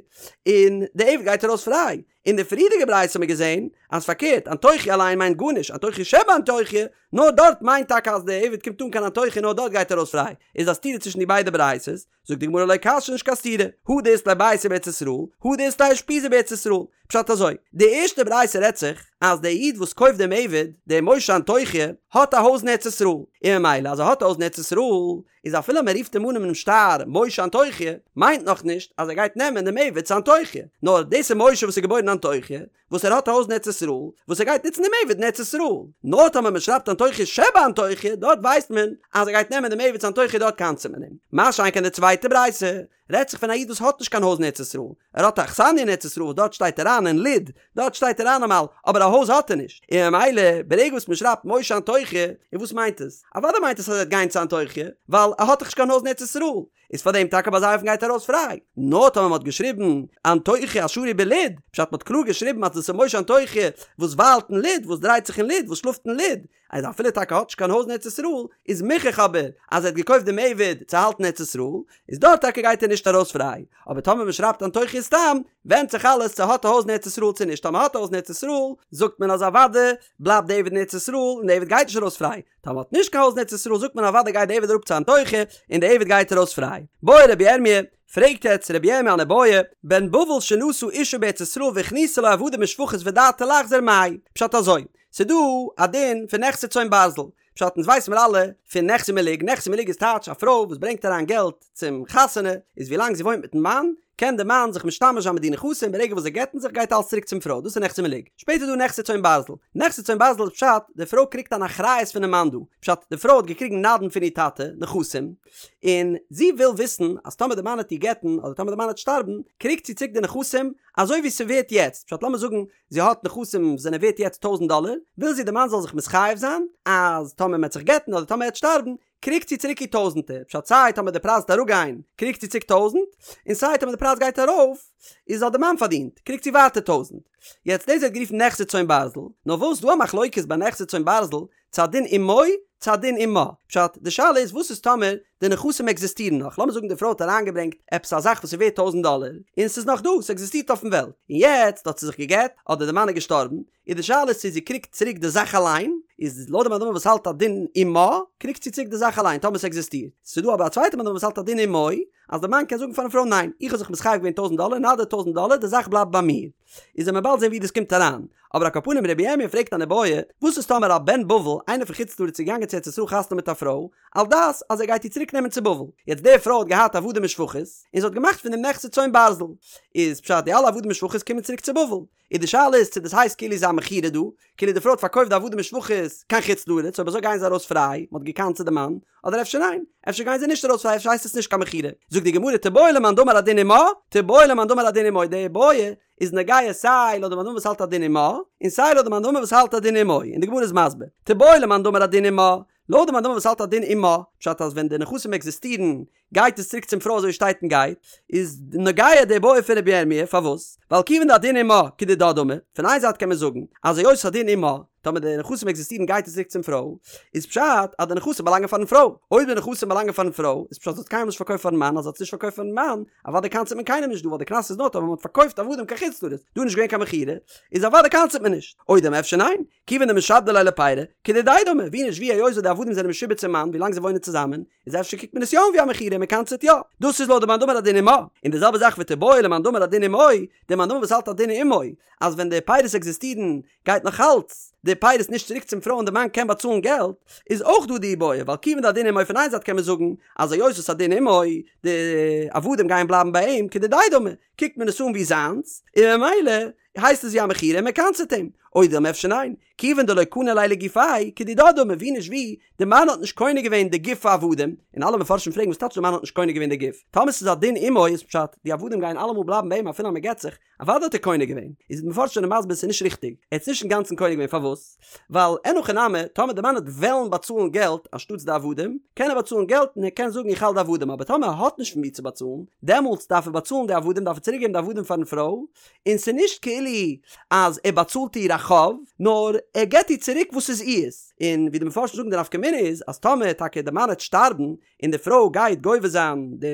און די עבד גייט ארויס פריי. אין די פריערדיגע ברייתא האט מען געזען אז פארקערט, אנטוכי אליין מיינט גארנישט, אנטוכי שבאנטוכי, נאר דארט מיינט טאקע אז די עבד קומט אן קיין אנטוכי נאר דארט גייט ער ארויס פריי. איז א סתירה צווישן די ביידע ברייתות, זאגט די גמרא לא קשיא נישט קיין סתירה, הא דאית ליה ביתא בארץ ישראל, הא דאית ליה אושפיזא בארץ ישראל. פשט אזוי, די ערשטע ברייתא רעדט זיך אז דער איד וואס קויפט דעם עבד, דער משה אנטוכי, האט א הויז אין ארץ ישראל, און ממילא אז ער האט א הויז אין ארץ ישראל, איז אפילו מען רופט אים אן אינעם שטר משה אנטוכי, מיינט נאך נישט אז ער גייט נעמען דעם עבד צו אנטוכי, נאר דאס איז משה וואס איז געבוירן אין אנטוכי, וואס ער האט א הויז אין ארץ ישראל, וואס ער גייט נוצן דעם עבד אין ארץ ישראל. נאר טאמער מען שרייבט אנטוכי שבאנטוכי, דארט ווייסט מען אז ער גייט נעמען דעם עבד צו אנטוכי דארט קנס'עט מען אים. מה שאין כן די צווייטע ברייתא, רעדט זיך פון א איד וואס האט נישט קיין הויז אין ארץ ישראל, ער האט א אכסניא אין ארץ ישראל וואס דארט שטייט ער איין אין לוד, דארט שטייט ער איין אמאל, אבער א הויז האט ער נישט, און ממילא ברגע וואס מען שרייבט משה אנטוכי, און וואס מיינט עס? אוודאי מיינט עס אז ער וועט גיין צו אנטוכי, ווייל ער האט דאך נישט קיין הויז אין ארץ ישראל, איז פאר דעם טאקע ביי אזא אופן גייט ער ארויס פריי. נאר טאמער מען האט געשריבן אנטוכי השרוי בלוד, פשט מען האט קלאר געשריבן אז דאס איז משה אנטוכי וואס וויילט אין לוד, וואס דרייט זיך אין לוד, וואס שלאפט אין לוד, אז אפילו טאקע האט נישט קיין הויז אין ארץ ישראל, איז מוכח אבער אז ער האט געקויפט דעם עבד צו האלטן ארץ ישראל, איז דארט טאקע גייט ער נישט ארויס פריי, אבער טאמער מען שרייבט אנטוכי סתם, ווענדט זיך אלעס צו האט א הויז אין ארץ ישראל צו נישט, טאמער האט א הויז אין ארץ ישראל, זאגט מען אז אוודאי בלייבט די עבד אין ארץ ישראל און די עבד גייט נישט ארויס פריי, טאמער האט נישט קיין הויז אין ארץ ישראל זאגט מען אוודאי גייט די עבד אראפ צו אנטוכי און די עבד גייט ארויס פריי. בעי רבי ירמי', פרעגט יעצט רבי ירמי' אן איבעיא, בן בבל שנשא אישה בארץ ישראל והכניסה לו עבדים ושפחות ודעתו לחזור מהו? פשט אזוי, ס'דא א דין פון נכסי צאן ברזל, פשט אונז ווייס מיר אלע פון נכסי מלוג, נכסי מלוג איז טייטש א פרוי וואס ברענגט אריין געלט צום חתונה, איז ווילאנג זי וואוינט מיטן מאן, קען די מאן זיך משתמש זיין מיט די נכסים, ברגע וואס זיי גט'ן זיך גייט אלס צוריק צום פרוי, דאס איז נכסי מלוג. שפעטער איז דא נכסי צאן ברזל, נכסי צאן ברזל איז פשט, די פרוי קריגט אן אחריות פונעם מאן דא, פשט, די פרוי האט געקריגן נדן פון איר טאטע, נכסים, און זי וויל וויסן אז טאמער די מאן העט איר גט'ן אדער טאמער די מאן העט שטארבן, קריגט זי צוריק די נכסים אזוי ווי ס'ווערט יעצט, פשט לאמיר זאגן זי האט נכסים וואס זענען ווערט יעצט טויזנט דאלער, וויל זי די מאן זאל זיך מתחייב זיין אז טאמער מען וועט זיך גט'ן אדער טאמער ער וועט שטארבן, קריגט זי צוריק איר טויזנטער, פשט סיי טאמער די פרייז וועט אראפגיין קריגט זי צוריק טויזנט, און סיי טאמער די פרייז גייט ארויף איז האט די מאן פארדינט, קריגט זי ווייטער טויזנט. יעצט דאס ווערט גערופן נכסי צאן ברזל, נאר וואס ס'דא א מחלוקת ביי נכסי צאן ברזל, צו הדין אמו. צו הדין עמה. פשט, די שאלה איז וואס איז טאמער די נכסים עקזיסטירן נאך, לאמיר זאגן די פרוי האט אריינגעברענגט עפעס א זאך וואס איז ווערט טויזענט דאלער, און ס'איז נאך דא, ס'עקזיסטירט אויפן וועלט, און יעצט האט זי זיך גע'גט, אדער די מאן איז געשטארבן, איז די שאלה איז צו זי קריגט צוריק די זאך אליין, איז לויט די מאן דאמר וואס האלט הדין עמה, קריגט זי צוריק די זאך אליין טאמער ס'עקזיסטירט. ס'איז דא אבער א צווייטע מאן דאמר וואס האלט הדין עמו, אז די מאן קען זאגן פארן פרוי ניין, איך האב זיך מתחייב געווען טויזענט דאלער, נא דיר טויזענט דאלער, די זאך בלייבט ביי מיר. איז וועט מען באלד זען ווי דאס קומט אריין. אבער על כל פנים רבי ירמיה פרעגט אן איבעיא, וואס איז טאמער א בן בבל, איינער פון חוץ לארץ איז געגאנגען צו ארץ ישראל חתונה מיט א פרוי, על דעת אז ער גייט איר צוריק נעמען צו בבל. יעצט די פרוי האט געהאט עבדים ושפחות, און זי האט געמאכט פון דעם נכסי צאן ברזל. איז פשט די אלע עבדים ושפחות קומען צוריק צו בבל. און די שאלה איז צו דאס הייסט כאילו ס'איז א מכירה דא, כאילו די פרוי האט פארקויפט די עבדים ושפחות קיין חוץ לארץ, אויב אזוי גייען זיי ארויס פריי, מען האט גע'קנס'ט די מאן, אדער אפשר ניין, אפשר גייען זיי נישט ארויס פריי, אפשר הייסט עס נישט קיין מכירה. זאגט די גמרא תיבעי למאן דאמר הדין עמה, תיבעי למאן דאמר הדין עמו, די איבעיא איז נוגע סיי לויט די מאן דאמר וואס האלט הדין עמה, און סיי לויט די מאן דאמר וואס האלט הדין עמו, און די גמרא איז מסביר, תיבעי למאן דאמר הדין עמה, לויט די מאן דאמר וואס האלט הדין עמה, פשט אז ווען די נכסים עקזיסטירן גייט עס צוריק צום פרוי אזוי שטייט און גייט, איז נוגע די בעיא פון רבי ירמי', פארוואס? ווייל כיוון דהדין עמה כדידה דמי, פון איין זייט קען מען זאגן אז היות הדין עמה, טאמער די נכסים עקזיסטירן גייט עס צוריק צום פרוי, איז פשט אז די נכסים באלאנגען פארן פרוי, אויב די נכסים באלאנגען פארן פרוי, איז פשט אז זי האט קיינמאל נישט פארקויפט פארן מאן, אז זי האט עס נישט פארקויפט פארן מאן, אוודאי קנס'ט מען קיינעם נישט דא ווייל די קנס איז נאר טאמער מען האט פארקויפט עבדים קיין חוץ לארץ, דא איז נישט געווען קיין מכירה, איז אוודאי קנס'ט מען נישט, או דלמא אפשר ניין, כיוון דמשעבדי ליה לפירי, כדידיה דמי, ווי נישט ווי היות די עבדים זענען משועבד צום מאן ווילאנג זיי וואוינען צוזאמען, איז אפשר קוקט מען עס יא אן ווי א מכירה און מען קנס'ט יא. דאס איז לויט די מאן דאמר הדין עמה. און די זעלבע זאך ותיבעי למאן דאמר הדין עמו, די מאן דאמר וואס האלט הדין עמו, אז ווען די פירות עקזיסטירן גייט נאך אלץ די פירות נישט צוריק צום פרוי און די מאן קען באצאלן געלט, איז אויך דא די איבעיא, ווייל כיוון דהדין עמו פון איין זייט קען מען זאגן אז היות וואס הדין עמו, די עבדים גייען בלייבן ביי אים, כדידיה דמי, קוקט מען עס אן ווי זיינס, און ממילא הייסט עס ווי א מכירה און מען קנס'ט אים. או דלמא אפשר ניין, כיוון דלא קני ליה לגופיה, כדידה דמי, ווי נישט ווי, די מאן האט נישט קונה געווען די גוף העבדים, און אלע מפרשים פרעגן וואס טייטש די מאן האט נישט קונה געווען די גוף? טאמער ס'איז הדין עמו איז פשט, די עבדים גייען אלעמאל בלייבן ביי אים אפילו אז מען גט זיך, אוודאי האט ער קונה געווען. איז די מפרשים זענען מסביר ס'איז נישט ריכטיג, ער האט עס נישט אינגאנצן קונה געווען פארוואס? ווייל אין הכי נמי, טאמער די מאן וועט וועלן באצאלן געלט אנשטאטס די עבדים, קען ער באצאלן געלט און ער קען זאגן איך האלט די עבדים, אבער טאמער ער האט נישט פון ווי צו באצאלן, דעמאלטס דארף ער באצאלן די עבדים, דארף ער צוריק געבן די עבדים פארן פרוי, און ס'איז נישט כאילו אז ער באצאלט איר א חוב, נאר ער געבט איר צוריק וואס איז איר'ס, און ווי די מפרשים זאגן די נפקא מינה איז אז טאמער טאקע די מאן וועט שטארבן און די פרוי גייט גובה זיין די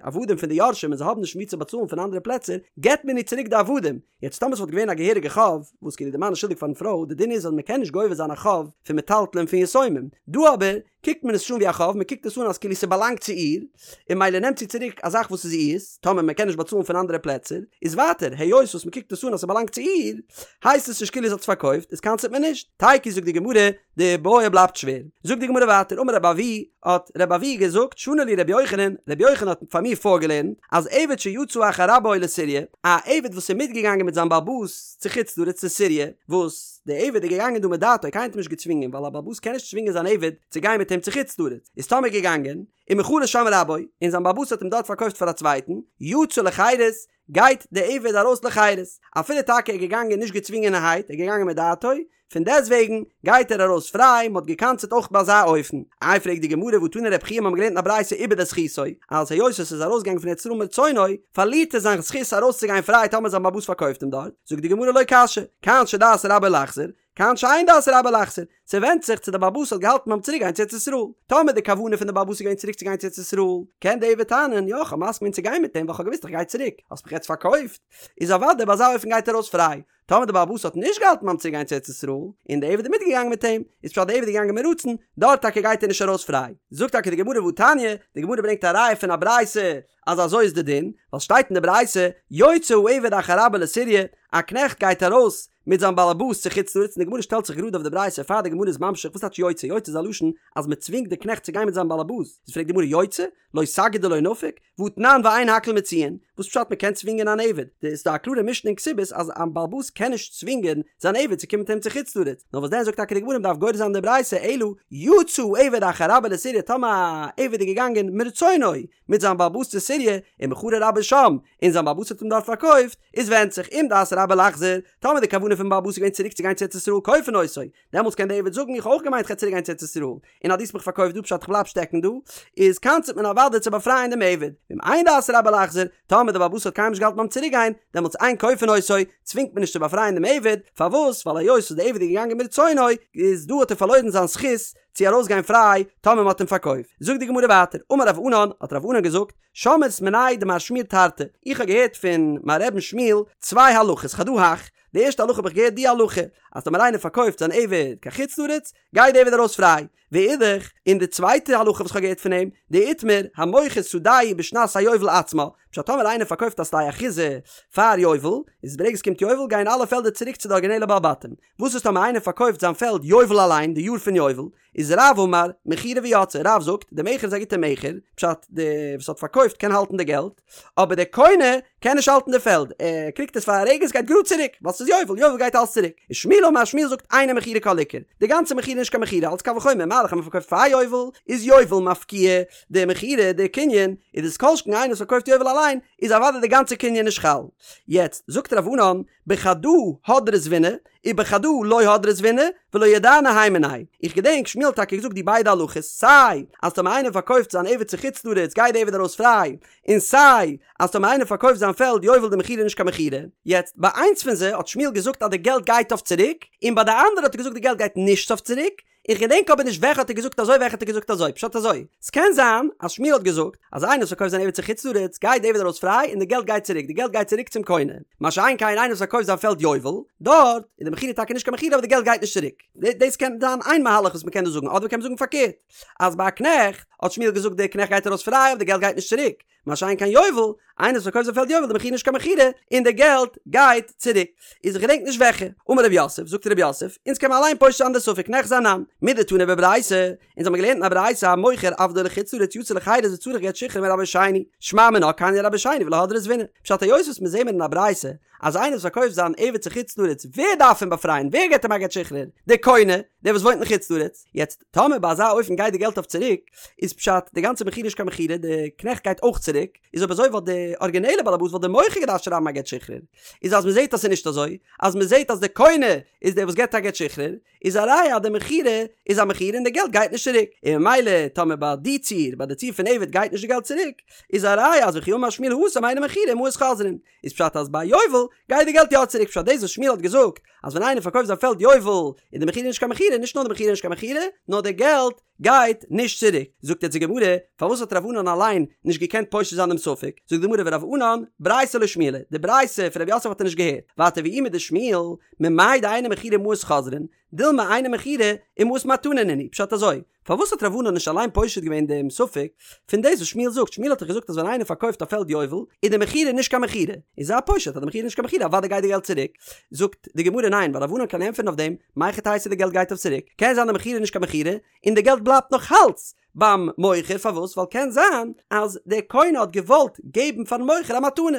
עבדים פון די יורשים און זיי האבן נישט ווי צו באצאלן פון אנדערע פלעצער, געבט מען איר צוריק די עבדים, יעצט טאמער ס'וואלט געווען א געהעריגע חוב, וואס כאילו די מאן איז שולדיג פארן פרוי, די דין איז אז מ'קען נישט גובה זיין א חוב פון מטלטלין פון יתומים, דא אבער קוקט מען עס נישט אן ווי א חוב, מען קוקט עס אן אז כאילו ס'באלאנגט צו איר, און ממילא נעמט זי צוריק א זאך וואס איז איר'ס, טאמער מען קען נישט באצאלן פון אנדערע פלעצער, איז ווייטער, היות וואס מען קוקט עס אן אז ס'באלאנגט צו איר, הייסט עס נישט כאילו זי האט עס פארקויפט, איז קנס'ט מען נישט. תיקו זאגט די גמרא, די בעיא בלייבט שווער. זאגט די גמרא ווייטער, אמר רבי אבהו, האט רבי אבהו געזאגט, שנה לי רבי יוחנן, רבי יוחנן האט פאר מיר פארגעלערנט, אז עבד שיצא אחר רבו לסוריא, א עבד וואס איז מיטגעגאנגען מיט זיין בעל הבית צו חוץ לארץ צו סוריא, וואס. דער עבד איז געגאנגען דא מדעתו, קיינער האט אים נישט געצווינגען, ווייל א בעל הבית קען נישט צווינגען זיין עבד צו גיין מיט אים צו חוץ לארץ, איז טאמער געגאנגען, ומכרו שם רבו, און זיין בעל הבית האט אים דארט פארקויפט פאר א צווייטן, יצא לחירות, גייט דער עבד ארויס לחירות, אפילו טאקע ער איז געגאנגען נישט געצווינגענערהייט, ער איז געגאנגען מדעתו, פון דעסטוועגן גייט ער ארויס פריי, מען האט געקנס'עט אויך ביי אזא אופן. איי פרעגט די גמרא והא תני רבי חייא מיר האבן געלערנט אין א ברייתא איבד את זכותו, אז היות עס איז ארויסגעגאנגען פון ארץ ישראל מרצונו, פארלירט ער זיין זכות ארויסצוגיין פריי טאמער זיין בעל הבית פארקויפט אים דארט, זאגט די גמרא לא קשיא, כאן שדעת רבו לחזור, כאן שאין דעת רבו לחזור, ס'ווענדט זיך צו די בעל הבית האט געהאלטן ביים צוריק גיין צו ארץ ישראל, טאמער די כוונה פון די בעל הבית איז געווען צוריק צו גיין צו ארץ ישראל, קען די עבד טענה'ן, יא כ'האב מסכים געווען צו גיין מיט אים ווייל כ'האב געוואוסט איך גיי צוריק, האסט מיך יעצט פארקויפט, איז אוודאי ביי אזא אופן גייט ער ארויס פריי, טאמער די בעל הבית האט נישט געהאלטן ביים צוריק גיין צו ארץ ישראל, און די עבד איז מיטגעגאנגען מיט אים, איז פשט די עבד איז געגאנגען מרצון, דארט טאקע גייט ער נישט ארויס פריי. זאגט טאקע די גמרא והתניא, די גמרא ברענגט א ראיה פון א ברייתא אז אזוי איז די דין, ווייל שטייט אין די ברייתא, יוצא העבד אחר רבו לסוריא, א קנעכט גייט ארויס מיט זיין בעל הבית צו חוץ לארץ, און די גמרא שטעלט זיך גראד אויף די ברייתא פאר די גמרא איז ממשיך, וואס טייטש יוצא? יוצא איז א לשון אז מען צווינגט די קנעכט צו גיין מיט זיין בעל הבית, איז פרעגט די גמרא יוצא? לא סגי דלא נפיק, והתנן ואין הכל מוציאין, וואס פשט מען קען צווינגען אן עבד? ס'איז דא א קלארע משנה אין כתובות אז א בעל הבית קען נישט צווינגען זיין עבד צו קומען מיט אים צו חוץ לארץ, נאר וואס דען זאגט טאקע די גמרא מ'דארף גורס זיין די ברייתא אלא יצא עבד אחר רבו לסוריא טאמער א עבד איז געגאנגען מרצונו מיט זיין בעל הבית צו סוריא ומכרו רבו שם און זיין בעל הבית האט אים דארט פארקויפט איז ווענדט זיך אם דעת רבו לחזור טאמער די כוונה פון בעל הבית איז געווען צוריק צו גיין צו ארץ ישראל כופין אותו דעמאלטס קען דער עבד זאגן איך האב אויך געמיינט כ'גיי צוריק גיין צו ארץ ישראל, און אז דו האסט מיך פארקויפט דא פשט כ'בלייב שטעקן דא, איז קנס'ט מען אוודאי צו באפרייען דעם עבד, ואם אין דעת רבו לחזור, טאמער דער בעל הבית האט קיינמאל נישט געהאלטן ביים צוריק גיין, דעמאלטס אין כופין אותו, צווינגט מען נישט צו באפרייען דעם עבד, פארוואס? ווייל היות וואס דער עבד איז געגאנגען מרצונו, איז דא האט ער פארלוירן זיין זכות. צו ארויסגיין פריי טאמער מ'האט אים פארקויפט. זאגט די גמרא ווייטער, אמר רב ענן, האט רב ענן געזאגט, שמעית מיניה דמר שמואל תרתי, איך האב געהערט פון מיין רבי'ן שמואל צוויי הלכות, חדא הך, די ערשטע הלכה האב איך געהערט די הלכה, אז טאמער איינער פארקויפט זיין עבד קיין חוץ לארץ, גייט די עבד ארויס פריי, ואידך, און די צווייטע הלכה וואס כ'האב געהערט פון אים, דאיתמר, המוכר שדהו בשנת היובל עצמה, פשט טאמער איינער פארקויפט א שדה אחוזה פאר יובל, איז ברגע עס קומט יובל גייען אלע פעלדער צוריק צו די ארגינעלע בעל בתים, וואס איז טאמער איינער פארקויפט זיין פעלד יובל אליין, די יאר פון יובל, איז רב אמר, מכירה ויצאה, רב זאגט, די מכר איז א גוטע מכר, פשט, די וואס האט פארקויפט קען האלטן די געלט, אבער דער קונה קען נישט האלטן די פעלד, ער קריגט עס פאר א רגע עס גייט גראד צוריק, ווייל ס'איז יובל, יובל גייט אלס צוריק. און שמואל אמר, שמואל זאגט אינה מכירה כל עיקר, די גאנצע מכירה איז נישט קיין מכירה, אלס קל וחומר, מה דאך אז מ'פארקויפט פאר יובל, איז יובל מפקיע די מכירה, די קנין, איז דאס כל שכן איינער וואס פארקויפט יובל אליין, איז אוודאי די גאנצע קנין נישט חל. יעצט, זאגט רב ענן, בחדא הדרי זבינא, ובחדא לא הדרי זבינא, ולא ידענא הי מינייהו. איך געדענק שמואל האט טאקע געזאגט די ביידע הלכות, סיי אז טאמער איינער פארקויפט זיין עבד צו חוץ לארץ גייט די עבד ארויס פריי, און סיי אז טאמער איינער פארקויפט זיין פעלד יובל די מכירה איז נישט קיין מכירה. יעצט, ביי איינס פון זיי האט שמואל געזאגט אז די געלט גייט אויף צוריק, און ביי די אנדערע האט ער געזאגט די געלט גייט נישט אויף צוריק, איך געדענק אבער נישט וועלכע האט ער געזאגט אזוי וועלכע האט ער געזאגט אזוי, פשט אזוי, ס'קען זיין אז שמואל האט געזאגט אז איינער וואס פארקויפט זיין עבד צו חוץ לארץ גייט די עבד ארויס פריי און די געלט גייט צוריק, די געלט גייט צוריק צום קונה, מה שאין כן איינער וואס פארקויפט זיין פעלד יובל, דארט איז די מכירה טאקע נישט קיין מכירה אבער די געלט גייט נישט צוריק. דאס קען זיין איין מהלך וואס מ'קען דא זאגן, אדער מ'קען זאגן פארקערט, אז ביי א קנעכט האט שמואל געזאגט די קנעכט גייט ארויס פריי אבער די געלט גייט נישט צוריק, מה שאין כן יובל, איינער וואס פארקויפט זיין פעלד יובל די מכירה נישט קיין מכירה, און די געלט גייט צוריק. איז איך געדענק נישט וועלכע. אמר רב יוסף, זאגט רב יוסף, אונז קען מען אליין פושט זיין די ספק ניחזי אנן. מדתני בברייתא, אונז האבן געלערנט אין א ברייתא המוכר עבדו לחוץ לארץ יצא לחירות וצריך גט שחרור מרבו שני, שמע מינה קנייה רבו שני ולא הדרי זבינא. פשט היות וואס מיר זעהן מיר אין א ברייתא אז איינער וואס פארקויפט זיין עבד צו חוץ לארץ ווער דארף אים באפרייען ווער געט אים א גט שחרור? דער קונה, דער וואס וואוינט אין חוץ לארץ. יעצט טאמער ביי אזא אופן גייט די געלט אויף צוריק, איז פשט די גאנצע מכירה נישט קיין מכירה, די קנעכט גייט אויך צוריק, איז אויב אזוי וואלט די ארגינעלע באלעבאס וואלט די מוכר געדארפט שרייבן א גט שחרור, איז אז מ'זעט אז ס'איז נישט אזוי, אז מ'זעט אז די קונה איז דער וואס געט א גט שחרור, איז א ראיה אז די מכירה איז א מכירה און די געלט גייט נישט צוריק, און ממילא טאמער ביי די ציור, ביי די ציור פון עבד גייט נישט די געלט צוריק, איז א ראיה אז וכי אמר שמואל התם אינה מכירה ומעות חוזרין, איז פשט אז ביי יובל גייט די געלט יא צוריק, פשט דאס וואס שמואל האט געזאגט אז ווען איינער פארקויפט זיין פעלד יובל איז די מכירה נישט קיין מכירה, נישט נאר די מכירה איז נישט קיין מכירה, נאר די געלט גייט נישט צוריק. זאגט יעצט די גמרא, פארוואס האט רב ענן אליין נישט געקענט פושט זיין דעם ספק? זאגט די גמרא ורב ענן, ברייתא לא שמיע ליה, די ברייתא פון רב יוסף האט ער נישט געהערט. ווייטער ואי מדשמואל, ממאי דאינה מכירה ומעות חוזרין, דילמא אינה מכירה ומעות מתנה נינהו, פשט אזוי, פארוואס האט רב ענן נישט אליין פושט געווען דעם ספק פון דאס וואס שמואל זאגט? שמואל האט דאך געזאגט אז ווען איינער פארקויפט א פעלד יובל איז די מכירה נישט קיין מכירה, איז זייער פשוט אז די מכירה איז נישט קיין מכירה אוודאי גייט די געלט צוריק. זאגט די גמרא ניין ווייל רב ענן קען ענטפערן אויף דעם, מהיכי תיתי די געלט גייט אויף צוריק, קען זיין די מכירה איז נישט קיין מכירה און די געלט בלייבט נאך אלץ ביים מוכר, פארוואס? ווייל קען זיין אז דער קונה האט געוואלט געבן פארן מוכר א מתנה,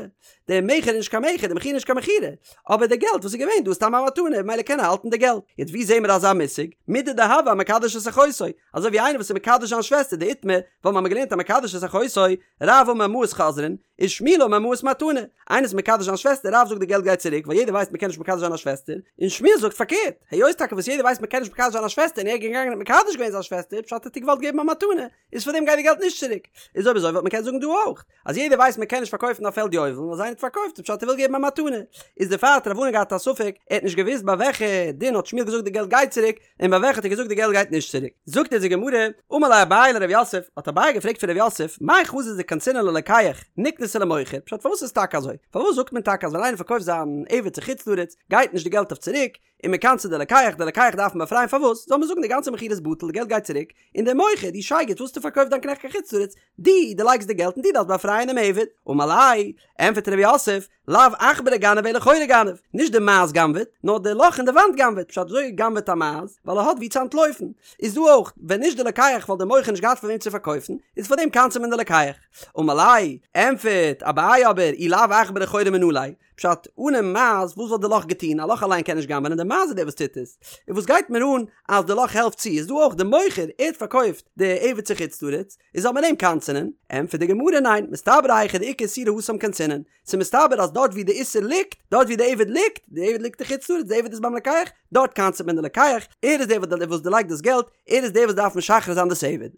דער מכר איז נישט קיין מכר, די מכירה איז נישט קיין מכירה, אבער די געלט וואס איז געווען דא איז סתם א מתנה, ממילא קען ער האלטן די געלט. יעצט ווי זעהן מיר אזא מושג? מידי דהוה אמקדש את אחותו, אזוי ווי איינער וואס איז מקדש זיין שוועסטער דאיתמר, ווייל מ'האמיר געלערנט המקדש את אחותו, רב אמר מעות חוזרין, ושמואל אמר מעות מתנה, איינער איז מקדש זיין שוועסטער, רב זאגט די געלט גייט צוריק, ווייל יעדער ווייסט מ'קען נישט מקדש זיין א שוועסטער, און שמואל זאגט פארקערט, היות טאקע וואס יעדער ווייסט מ'קען נישט מקדש זיין א שוועסטער און ער איז געגאנגען און מקדש געווען זיין שוועסטער, פשט האט ער געוואלט געבן א מתנה, איז פאר דעם גייט די געלט נישט צוריק. איז אויב אזוי וואלט מען קענען זאגן דא אויך, אז יעדער ווייסט מ'קען נישט פארקויפן א פעלד יובל, און אז איינער האט פארקויפט איז פשט ער וויל געבן א מתנה. איז דערפאר האט רב ענן געהאט א ספק, ער האט נישט געוואוסט ביי וועלכע דין האט שמואל געזאגט די געלט גייט צוריק, און ביי וועלכע האט ער געזאגט די געלט גייט נישט צוריק. זאגט אונז די גמרא, אמר ליה אביי לרב יוסף, האט אביי געפרעגט פון רב יוסף, מאי חזית דקנסינן ללוקח, נקנסיה למוכר, פשט פארוואס איז טאקע אזוי? פארוואס זאגט מען טאקע אז ווען איינער פארקויפט זיין עבד צו חוץ לארץ, גייט נישט די געלט אויף צוריק, און מען קנס'עט די לוקח, די לוקח דארף מען באפרייען פארוואס? זאל מען זאגן די גאנצע מכירה איז בטל, די געלט גייט צוריק, און דער מוכר, דו שייגעץ וואס האסטו פארקויפט דיין קנעכט קיין חוץ לארץ, דו דערלייגסט די געלט און דו דארפסט באפרייען דעם עבד. אמר ליה, ענטפערט רב יוסף, לאו עכברא גנב אלא חורא גנב, נישט די מייז גנב'עט, נאר די לאך אין די וואנט גנב'עט, פשט וויאזוי גנב'עט א מייז, ווייל ער האט וואו צו אנטלויפן. איז דא אויך, ווען נישט די לוקח וואלט דער מוכר נישט געהאט פאר וועם צו פארקויפן, איז פאר דעם קנס'עט מען די לוקח. אמר ליה, ענטפערט אביי אבער, אי לאו עכברא חורא מנא ליה, פשט, אנעם מייז, וואס וואלט די לאך געטון? א לאך אליין קען נישט גנב'ענען, די מייז איז דער וואס טוט עס. און וואס גייט מיר אן אז די לאך העלפט צו? איז דא אויך די מוכר, ער האט פארקויפט די עבד צו חוץ לארץ, איז זאל מען אים קנס'ענען? ענטפערט די גמרא ניין, מסתברא היכא דאיכא איסורא התם קנסינן, ס'איז מסתבר אז דארט ווי די איסור ליגט, דארט ווי די עבד ליגט, די עבד ליגט אין חוץ לארץ, די עבד איז ביים לוקח, דארט קנס'עט מען די לוקח, ער איז דער וואס דערלייגט דאס געלט, ער איז דער וואס דארף משחרר זיין דאס עבד.